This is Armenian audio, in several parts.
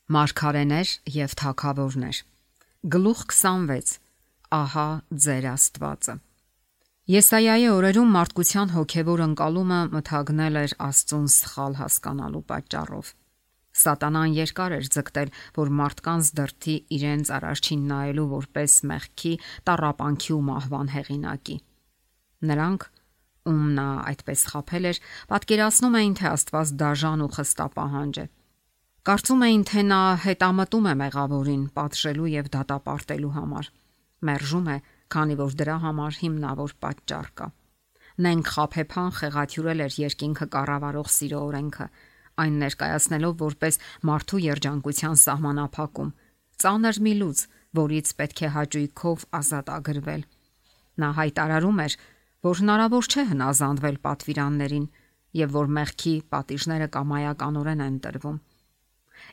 Մարգարեներ եւ թագավորներ։ Գլուխ 26. Ահա ձեր Աստվածը։ Եսայայի օրերում մարդկության հոգևոր ընկալումը մթագնել էր Աստծուն սխալ հասկանալու պատճառով։ Սատանան երկար էր ձգտել, որ մարդկանց դրդի իրենց առաջին նայելու որպես մեղքի, տառապանքի ու մահվան հեղինակի։ Նրանք, ում նա այդպես խաբել էր, պատկերացնում էին, թե Աստված դաժան ու խստապահանջ է։ Կարծում էին, թե նա հետամտում է մեղավորին պատժելու եւ դատապարտելու համար։ Մերժում է, քանի որ դրա համար հիմնավոր պատճառ կա։ Նենք խաբեբան խեղաթյուրել էր երկինքը կառավարող սիրո օրենքը, այն ներկայացնելով որպես մարդու երջանկության սահմանափակում, ծանր մի լուծ, որից պետք է հաճույքով ազատ ագրվել։ Նա հայտարարում էր, որ հնարավոր չէ հնազանդվել պատվիրաններին եւ որ մեղքի պատիժները կամայականորեն են տրվում։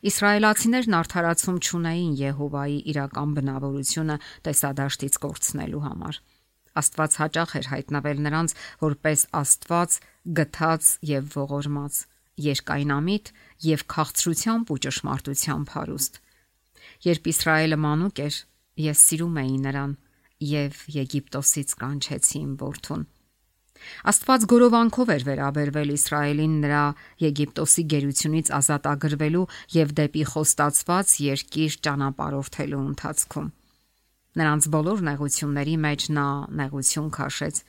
Իսրայելացիներն արդարացում չունեին Եհովայի իրական բնավորությունը տեսադաշտից կորցնելու համար։ Աստված հաճախ էր հայտնվել նրանց որպես Աստված գթած եւ ողորմած, երկայնամիտ եւ քաղցրությամբ ու ճշմարտությամբ հարուստ։ Երբ Իսրայելը մանուկ էր, ես սիրում էի նրան եւ Եգիպտոսից կանչեցի իմ որդուն։ Աստված գորովանքով էր վերաբերվել Իսրայելին նրա Եգիպտոսի գերությունից ազատ ագրվելու եւ դեպի խոստացված երկիր ճանապարհորդելու ընթացքում։ Նրանց բոլոր նեղությունների մեջ նա նեղություն քաշեց։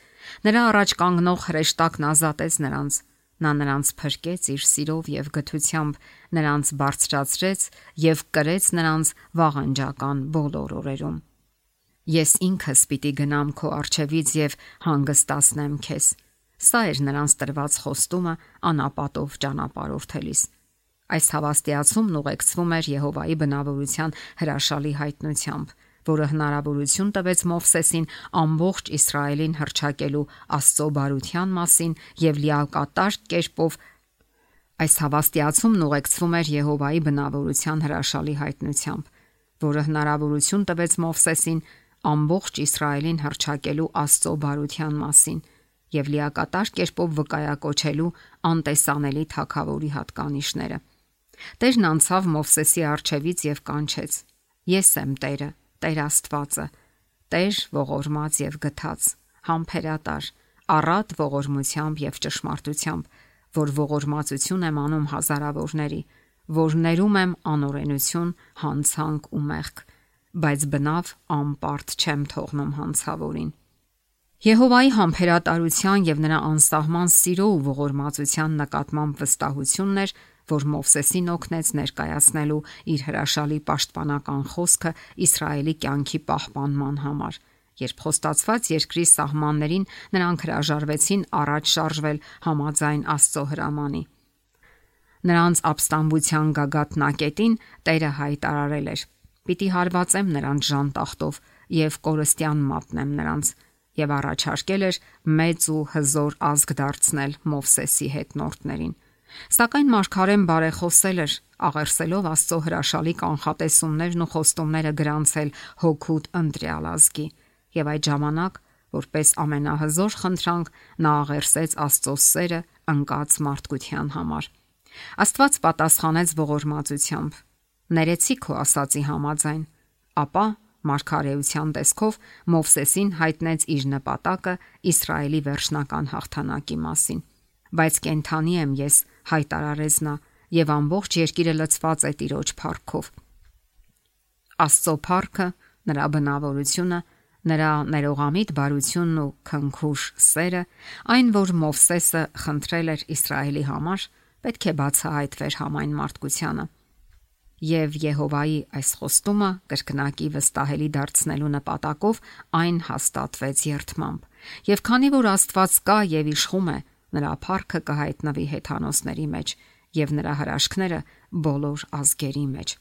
Նրա առաջ կանգնող հրեշտակն ազատեց նրանց։ Նա նրանց փրկեց իր սիրով եւ գթությամբ, նրանց բարձրացրեց եւ կրեց նրանց վաղանջական բոլոր օրերում։ Ես ինքս պիտի գնամ քո առջևից եւ հանգստացնեմ քեզ։ Սա էր նրանց տրված խոստումը անապատով ճանապարհորդելիս։ Այս հավաստիացումն ուղեկցվում էր Եհովայի բնավորության հրաշալի հայտնությամբ, որը հնարավորություն տվեց Մովսեսին ամբողջ Իսրայելին հռչակելու Աստծո բարության մասին եւ լիակատար կերպով այս հավաստիացումն ուղեկցվում էր Եհովայի բնավորության հրաշալի հայտնությամբ, որը հնարավորություն տվեց Մովսեսին ամբողջ Իսրայելին հռչակելու Աստծո բարության մասին եւ լիակատար կերպով վկայակոչելու անտեսանելի թագավորի հատկանիշները։ Տերն անցավ Մովսեսի առջևից եւ կանչեց. Ես եմ Տերը, Տեր Աստվածը, Տեր ողորմած եւ գթած, համբերատար, առատ ողորմությամբ եւ ճշմարտությամբ, որ ողորմածություն եմ անում հազարավորների, որ ներում եմ անօրենություն, հանցանք ու մեղք, բայց բնավ անպարտ չեմ թողնում հանցավորին։ Եհովայի համբերատարության եւ նրա անսահման սիրո ու ողորմածության նկատմամբ վստահությունն էր, որ Մովսեսին օգնեց ներկայացնելու իր հրաշալի պաշտպանական խոսքը Իսրայելի կյանքի պահպանման համար, երբ խոստացված երկրի սահմաններին նրանք հրաժարվեցին առաջ շարժվել համաձայն Աստծո հրամանի։ Նրանց ապստամբության գագաթնակետին Տերը հայտարարել էր. Պիտի հարվածեմ նրանց ժանտախտով եւ կորստյան մատնեմ նրանց, եւ առաջարկել էր մեծ ու հզոր ազգ դարձնել Մովսեսի հետնորդներին։ Սակայն մարգարեն բարեխոսել էր, աղերսելով Աստծո հրաշալի կանխատեսումներն ու խոստումները գրանցել հոգուտ ընտրյալ ազգի, եւ այդ ժամանակ, որպես ամենահզոր խնդրանք, նա աղերսեց Աստծո սերը ընկած մարդկության համար։ Աստված պատասխանեց ողորմածությամբ. Ներեցի քո ասացի համաձայն, ապա մարգարեության տեսքով Մովսեսին հայտնեց իր նպատակը Իսրայելի վերջնական հաղթանակի մասին։ Բայց կենթանի եմ ես, հայտարարեց նա, եւ ամբողջ երկիրը լցված է Տիրոջ փառքով։ Աստծո փառքը, նրա բնավորությունը, նրա ներողամիտ բարությունն ու քնքուշ սերը, այն, որ Մովսեսը խնդրել էր Իսրայելի համար, պետք է բացահայտվեր համայն մարդկությանը։ Եվ Եհովայի այս խոստումը կրկնակի վստահելի դարձնելու նպատակով այն հաստատվեց երդմամբ։ Եվ քանի որ Աստված կա եւ իշխում է, նրա փառքը կհայտնվի հեթանոսների մեջ եւ նրա հրաշքները բոլոր ազգերի մեջ։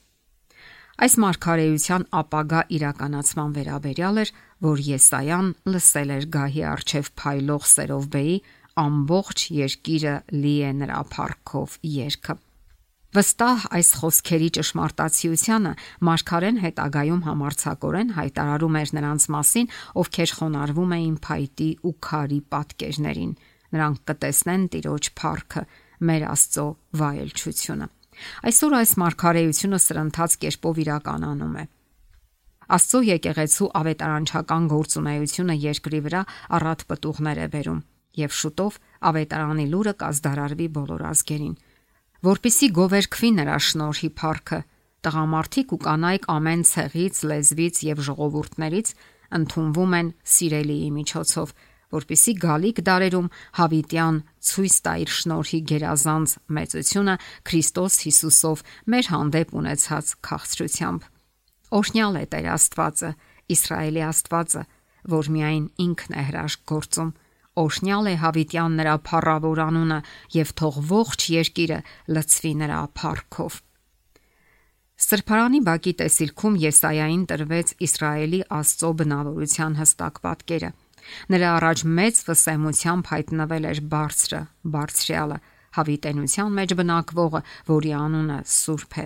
Այս մարգարեության ապագա իրականացման վերաբերյալ էր, որ Եսայան լսել էր գահի առջև փայլող Սերովբեի ամբողջ երկիրը լի է նրա փառքով երգը։ Վստահ այս խոսքերի ճշմարտացիությանը մարգարեն հետագայում համարձակորեն հայտարարում էր նրանց մասին, ովքեր խոնարհվում էին փայտի ու քարի պատկերներին։ Նրանք կտեսնեն Տիրոջ փառքը, մեր Աստծո վայելչությունը։ Այսօր այս մարգարեությունը սրընթաց կերպով իրականանում է։ Աստծո եկեղեցու ավետարանչական գործունեությունը երկրի վրա առատ պտուղներ է բերում, եւ շուտով ավետարանի լուրը կազդարարվի բոլոր ազգերին, որպիսի գովերգվի նրա շնորհի փառքը, տղամարդիկ ու կանայք ամեն ցեղից, լեզվից եւ ժողովուրդներից ընդունվում են սիրելիի միջոցով, որպիսի գալիք դարերում հավիտյան ցույց տա իր շնորհի գերազանց մեծությունը Քրիստոս Հիսուսով մեր հանդեպ ունեցած քաղցրությամբ։ Օրհնյալ է Տեր Աստվածը, Իսրայելի Աստվածը, որ միայն ինքն է հրաշք գործում։ Օրհնյալ է հավիտյան նրա փառավոր անունը եւ թող ողջ երկիրը լցվի նրա փառքով։ Սրբարանի բակի տեսիլքում Եսայային տրվեց Իսրայելի Աստծո բնավորության հստակ պատկերը։ Նրա առաջ մեծ վսեմությամբ հայտնվել էր բարձրը, բարձրյալը, հավիտենության մեջ բնակվողը, որի անունը Սուրբ է։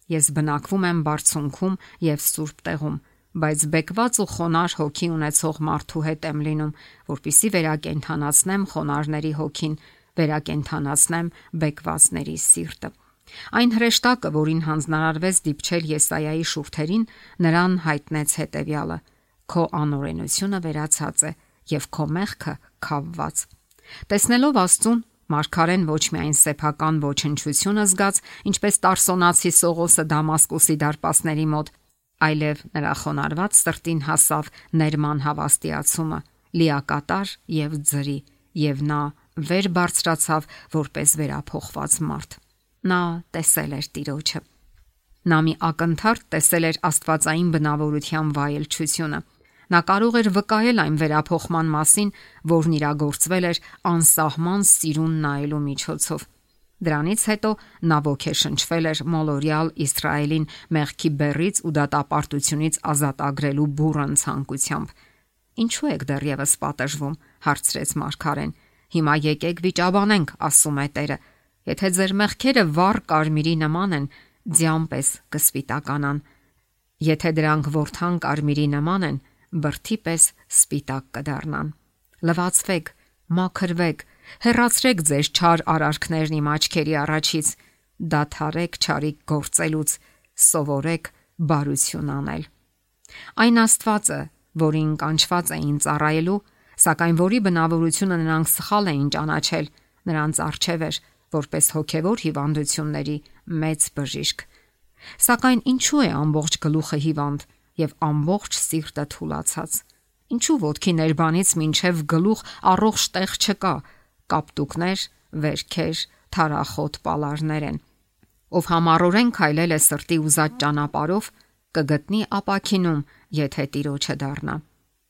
Ես բնակվում եմ բարձունքում եւ սուրբ տեղում, բայց բեկված ու խոնար հոգի ունեցող մարդու հետ եմ լինում, որpիսի վերակենդանացնեմ խոնարների հոգին, վերակենդանացնեմ բեկվածների սիրտը։ Այն հրեշտակը, որին հանձնարարվեց դիպչել Եսայայի շուրթերին, նրան հայտնեց հետևյալը. քո անօրենությունը վերացած է եւ քո մեղքը քավված։ Տեսնելով Աստծուն, մարգարեն ոչ միայն սեփական ոչնչությունը զգաց, ինչպես Տարսոնացի Սողոսը Դամասկոսի դարպասների մոտ, այլև նրա խոնարհված սրտին հասավ ներման հավաստիացումը, լիակատար եւ ձրի, եւ նա վեր բարձրացավ որպես վերափոխված մարդ։ Նա տեսել էր Տիրոջը։ Նա մի ակնթարթ տեսել էր աստվածային բնավորության վայելչությունը։ Նա կարող էր վկայել այն վերափոխման մասին, որն իրագործվել էր անսահման սիրուն նայելու միջոցով։ Դրանից հետո նա ոգեշնչվել էր մոլորյալ Իսրայելին մեղքի բեռից ու դատապարտությունից ազատագրելու բուռն ցանկությամբ։ Ինչու եք դեռևս պատժվում, հարցրեց մարգարեն։ Հիմա եկեք վիճաբանենք, ասում է Տերը։ Եթե ձեր մեղքերը վառ կարմիրի նման են, ձյան պես կսպիտականան։ Եթե դրանք ворթան կարմիրի նման են, բրդի պես սպիտակ կդառնան։ Լվացվեք, մաքրվեք, հեռացրեք ձեր չար արարքներն իմ աչքերի առաջից, դադարեք չարիք գործելուց, սովորեք բարություն անել։ Այն Աստվածը, որին կանչված էին ծառայելու, սակայն որի բնավորությունը նրանք սխալ էին ճանաչել, նրանց առջև էր որպես հոգևոր հիվանդությունների մեծ բժիշկ։ Սակայն ինչու է ամբողջ գլուխը հիվանդ եւ ամբողջ սիրտը թուլացած։ Ինչու ոտքի ներբանից մինչև գլուխ առողջ տեղ չկա, կապտուկներ, վերքեր, թարախոտ պալարներ են։ Ով համառորեն քայլել է սրտի ուզած ճանապարհով, կգտնի ապաքինում, եթե Տիրոջը դառնա։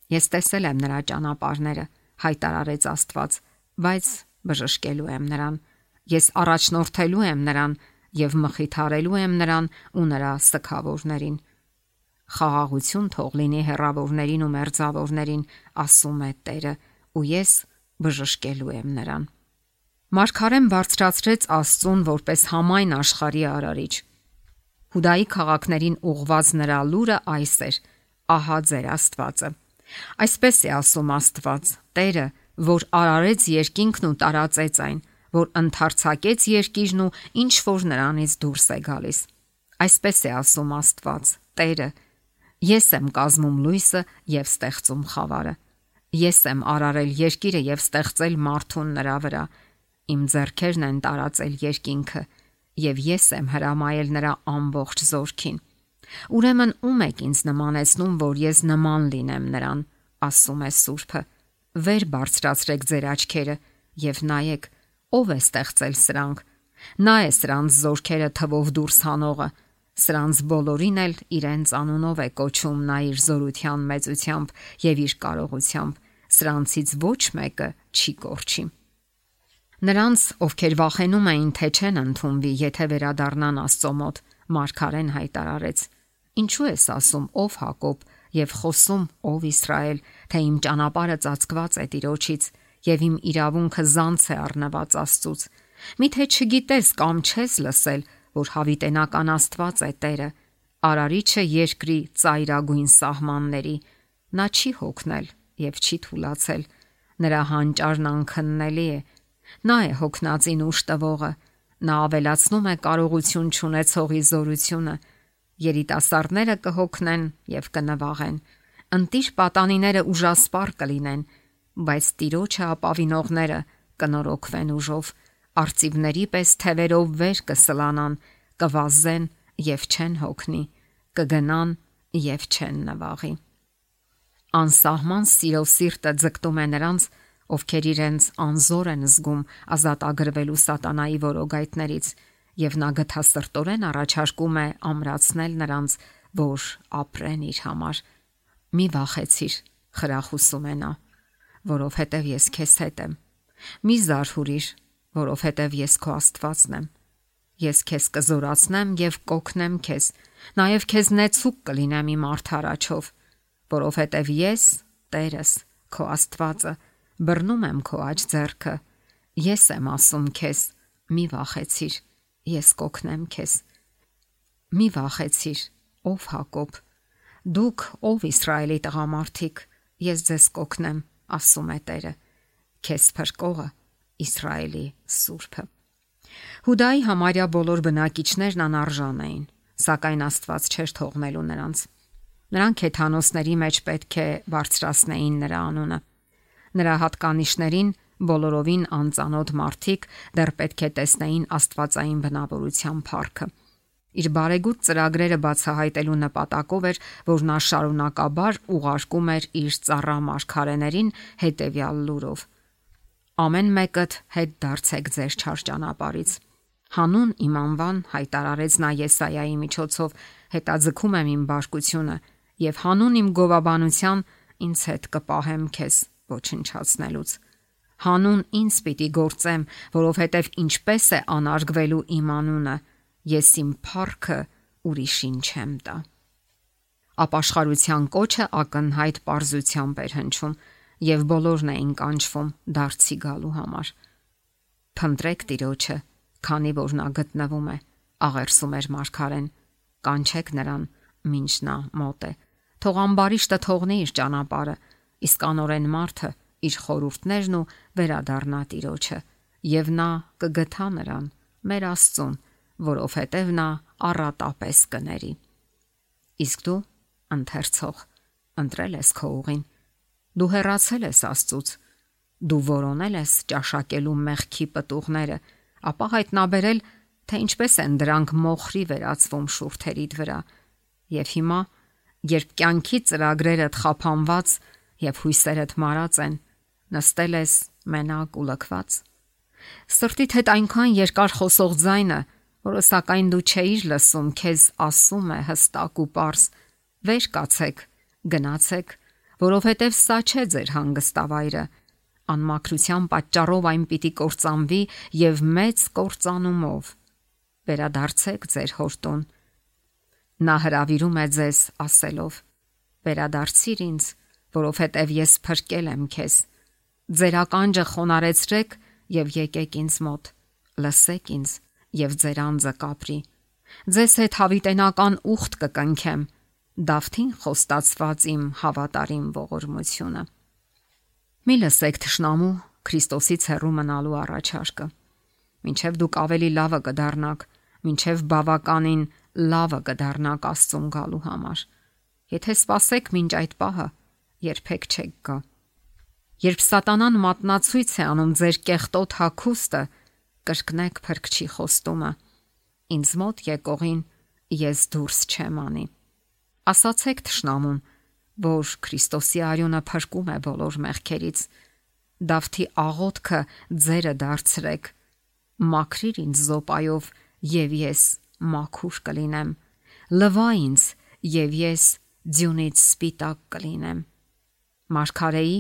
Ես տեսել եմ նրա ճանապարհները, հայտարարեց Աստված, բայց բժշկելու եմ նրան։ Ես առաջնորդելու եմ նրան եւ մխիթարելու եմ նրան ու նրա սքավորներին։ Խաղաղություն թող լինի հեռավորներին ու մերձավորներին, ասում է Տերը, ու ես բժշկելու եմ նրան։ Մարգարեն բարձրացրեց Աստծուն որպես համայն աշխարհի արարիչ։ Հուդայի քաղաքներին ուղված նրա լուրը այս էր. ահա ձեր Աստվածը։ Այսպես է ասում Աստված, Տերը, որ արարեց երկինքն ու տարածեց այն, որ ընդարձակեց երկիրն ու ինչ որ նրանից դուրս է գալիս։ Այսպես է ասում Աստված, Տերը, ես եմ կազմում լույսը եւ ստեղծում խավարը։ Ես եմ արարել երկիրը եւ ստեղծել մարդուն նրա վրա։ Իմ ձեռքերն են տարածել երկինքը եւ ես եմ հրամայել նրա ամբողջ զորքին։ Ուրեմն ում եք ինձ նմանեցնում, որ ես նման լինեմ նրան, ասում է Սուրբը։ Վեր բարձրացրեք ձեր աչքերը եւ նայեք, ով է ստեղծել սրանք։ Նա է սրանց զորքերը թվով դուրս հանողը։ Սրանց բոլորին էլ իրենց անունով է կոչում նա իր զորության մեծությամբ եւ իր կարողությամբ։ Սրանցից ոչ մեկը չի կորչի։ Նրանց, ովքեր վախենում էին, թե չեն ընդունվի, եթե վերադառնան Աստծո մոտ, մարգարեն հայտարարեց. Ինչու ես ասում, ով Հակոբ, եւ խոսում, ով Իսրայել, թե իմ ճանապարհը ծածկված է Տիրոջից եւ իմ իրավունքը զանց է առնված Աստծուց։ Միթե չգիտես կամ չես լսել, որ հավիտենական Աստված է Տերը, արարիչը երկրի ծայրագույն սահմանների։ Նա չի հոգնել եւ չի թուլացել։ Նրա հանճարն անքննելի է։ Նա է հոգնածին ուշ տվողը, Նա ավելացնում է կարողություն չունեցողի զորությունը։ Երիտասարդները կհոգնեն եւ կնվաղեն։ Ընտիր պատանիները ուժասպառ կլինեն, բայց Տիրոջը ապավինողները կնորոգվեն ուժով։ Արծիվների պես թևերով վեր կսլանան, կվազեն եւ չեն հոգնի, կգնան եւ չեն նվաղի։ Անսահման սիրով սիրտը ձգտում է նրանց, ովքեր իրենց անզոր են զգում ազատագրվելու սատանայի որոգայթներից, եւ նա գթասրտորեն առաջարկում է ամրացնել նրանց, որ ապրեն իր համար։ Մի վախեցիր, խրախուսում է նա, որովհետև ես քեզ հետ եմ։ Մի զարհուրիր, որովհետև ես քո Աստվածն եմ։ Ես քեզ կզորացնեմ եւ կօգնեմ քեզ, նաեւ քեզ նեցուկ կլինեմ իմ արդարաչով, որովհետև ես, Տերս, քո Աստվածը, բռնում եմ քո աջ ձեռքը։ Ես եմ ասում քեզ, մի վախեցիր, ես կօգնեմ քեզ։ Մի վախեցիր, ով Հակոբ, դուք ով Իսրայելի տղամարդիկ, ես ձեզ կօգնեմ, ասում է Տերը, քեզ փրկողը, Իսրայելի Սուրբը։ Հուդայի համարյա բոլոր բնակիչներն անարժան էին, սակայն Աստված չէր թողնելու նրանց։ Նրանք հեթանոսների մեջ պետք է բարձրացնեին նրա անունը։ Նրա հատկանիշներին բոլորովին անծանոթ մարդիկ դեռ պետք է տեսնեին աստվածային բնավորության փառքը։ Իր բարեգութ ծրագրերը բացահայտելու նպատակով էր, որ նա շարունակաբար ուղարկում էր իր ծառա մարգարեներին հետևյալ լուրով. ամեն մեկդ հետ դարձեք ձեր չար ճանապարհից։ Հանուն իմ անվան հայտարարեց նա Եսայայի միջոցով, հետաձգում եմ իմ բարկությունը եւ հանուն իմ գովաբանության ինձ հետ կպահեմ քեզ ոչնչացնելուց։ Հանուն ինձ պիտի գործեմ, որովհետև ինչպես է անարգվելու իմ անունը, ես իմ փառքը ուրիշին չեմ տա։ Ապաշխարության կոչը ակնհայտ պարզությամբ էր հնչում, եւ բոլորն էին կանչվում դարձի գալու համար։ Փնտրեք Տիրոջը, քանի որ նա գտնվում է, աղերսում էր մարգարեն, կանչեք նրան, մինչ նա մոտ է։ Թող ամբարիշտը թողնի իր ճանապարհը, իսկ անօրեն մարդը իր խորհուրդներն ու վերադառնա Տիրոջը, եւ նա կգթա նրան, մեր Աստծուն, որովհետև նա առատապես կների։ Իսկ դու, ընթերցող, ընտրել ես քո ուղին, դու հեռացել ես Աստծուց, դու որոնել ես ճաշակելու մեղքի պտուղները, ապա հայտնաբերել, թե ինչպես են դրանք մոխրի վերածվում շուրթերիդ վրա, եւ հիմա, երբ կյանքի ծրագրերդ խափանված եւ հույսերդ մարած են, նստել ես մենակ ու լքված։ Սրտիդ հետ այնքան երկար խոսող ձայնը, որը սակայն դու չէիր լսում, քեզ ասում է հստակ ու պարզ. վեր կացեք, գնացեք, որովհետև սա չէ ձեր հանգստավայրը։ Անմաքրության պատճառով այն պիտի կործանվի եւ մեծ կործանումով։ Վերադարձեք ձեր հորտուն։ Նա հրավիրում է ձեզ ասելով. վերադարձիր ինձ, որովհետև ես փրկել եմ քեզ։ Ձեր ականջը խոնարեցրեք եւ եկեք ինձ մոտ, լսեք ինձ եւ ձեր անձը կապրի։ Ձեզ հետ հավիտենական ուխտ կկնքեմ, Դավթին խոստացված իմ հավատարիմ ողորմությունը։ Մի լսեք թշնամու Քրիստոսից հեռու մնալու առաջարկը։ Մինչև դուք ավելի լավը կդառնաք, մինչև բավականին լավը կդառնաք Աստծուն գալու համար։ Եթե սпасեք մինչ այդ պահը, երբեք չեք գա։ Երբ սատանան մատնացույց է անում ձեր կեղտոտ հագուստը, կրկնեք Փրկչի խոստումը. ինձ մոտ եկողին ես դուրս չեմ անի։ Ասացեք թշնամուն, որ Քրիստոսի արյունը փրկում է բոլոր մեղքերից։ Դավթի աղոթքը ձերը դարձրեք. մաքրիր ինձ զոպայով եւ ես մաքուր կլինեմ։ Լվա ինձ եւ ես ձյունից սպիտակ կլինեմ։ Մարգարեի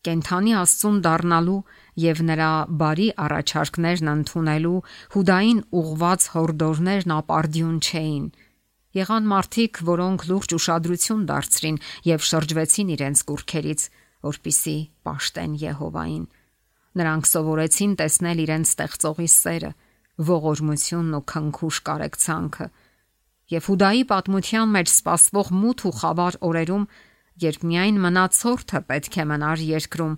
կենթանի Աստծուն դառնալու եւ նրա բարի առաջարկներն ընդունելու Հուդային ուղված հորդորներն ապարդյուն չէին։ Եղան մարդիկ, որոնք լուրջ ուշադրություն դարձրին եւ շրջվեցին իրենց կուռքերից, որպիսի պաշտեն Եհովային։ Նրանք սովորեցին տեսնել իրենց ստեղծողի սերը, ողորմությունն ու քնքուշ կարեկցանքը։ Եվ Հուդայի պատմության մեջ սպասվող մութ ու խավար օրերում, երբ միայն մնացորդը պետք է մնար երկրում,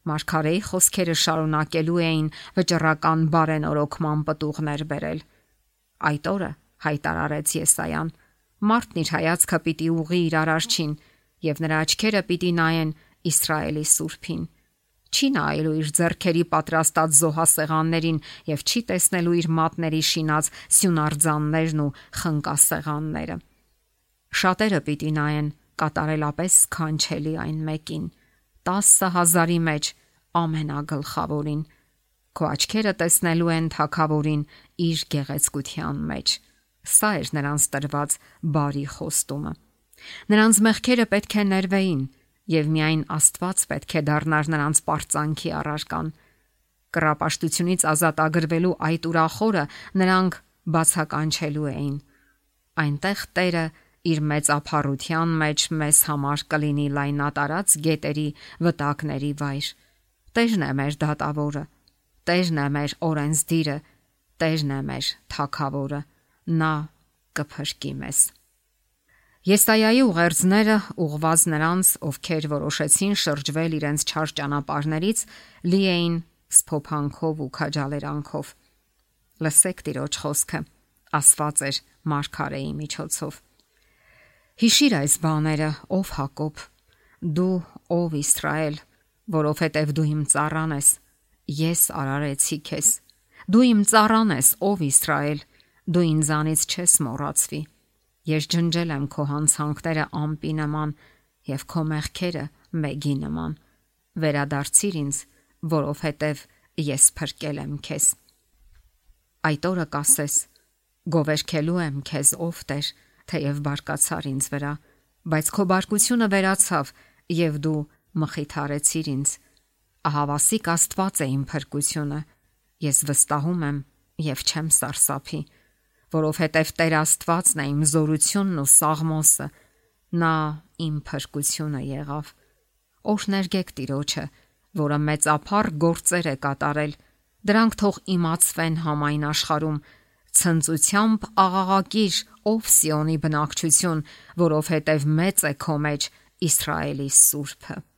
Մարգարեի խոսքերը շարունակելու էին վճռական բարենորոգման պտուղներ բերել։ Այդ օրը հայտարարեց Եսայան, մարդն իր հայացքը պիտի ուղղի իր Արարչին, եւ նրա աչքերը պիտի նայեն Իսրայելի Սուրբին։ Չի նայելու իր ձեռքերի պատրաստած զոհասեղաններին եւ չի տեսնելու իր մատների շինած սյունարձաններն ու խնկասեղանները։ Շատերը պիտի նայեն կատարելապես սքանչելի այն մեկին, 10,000-ի մեջ ամենագլխավորին։ Քո աչքերը տեսնելու են Թագավորին իր գեղեցկության մեջ։ Սա էր նրանց տրված բարի խոստումը։ Նրանց մեղքերը պետք է ներվեին, եւ միայն Աստված պետք է դառնար նրանց պարծանքի առարկան։ Կռապաշտությունից ազատագրվելու այդ ուրախորը նրանք բացականչելու էին։ Այնտեղ Տերը իր մեծափառության մեջ մեզ համար կլինի լայնատարած գետերի վտակների վայր։ Տերն է մեր դատավորը, Տերն է մեր օրենսդիրը, Տերն է մեր Թագավորը, նա կփրկի մեզ։ Եսայայի ուղերձները ուղված նրանց, ովքեր որոշեցին շրջվել իրենց չար ճանապարհներից, լի էին սփոփանքով ու քաջալերանքով։ Լսեք Տիրոջ խոսքը, ասված էր մարգարեի միջոցով։ Հիշիր այս բաները, ով Հակոբ, դու ով Իսրայել, որովհետև դու իմ ծառան ես, ես արարեցի քեզ։ Դու իմ ծառան ես, ով Իսրայել, դու ինձանից չես մոռացվի։ Ես ջնջել եմ քո հանցանքները ամպի նման եւ քո մեղքերը մեգի նման։ Վերադարձիր ինձ, որովհետև ես փրկել եմ քեզ։ Այդ օրը կասես. գովերքելու եմ քեզ, ով Տեր, թեև բարկացար ինձ վրա, բայց քո բարկությունը վերացավ եւ դու մխիթարեցիր ինձ։ Ահավասիկ Աստված է իմ փրկությունը, ես վստահում եմ եւ չեմ սարսափի, որովհետև Տեր Աստվածն է իմ զորությունն ու սաղմոսը, նա իմ փրկությունը եղավ։ Օրհներգեք Տիրոջը, որը մեծափառ գործեր է կատարել, դրանք թող իմացվեն համայն աշխարհում։ Ցնծությամբ աղաղակիր, ով Սիոնի բնակչություն, որովհետև մեծ է քո մեջ Իսրայելի Սուրբը։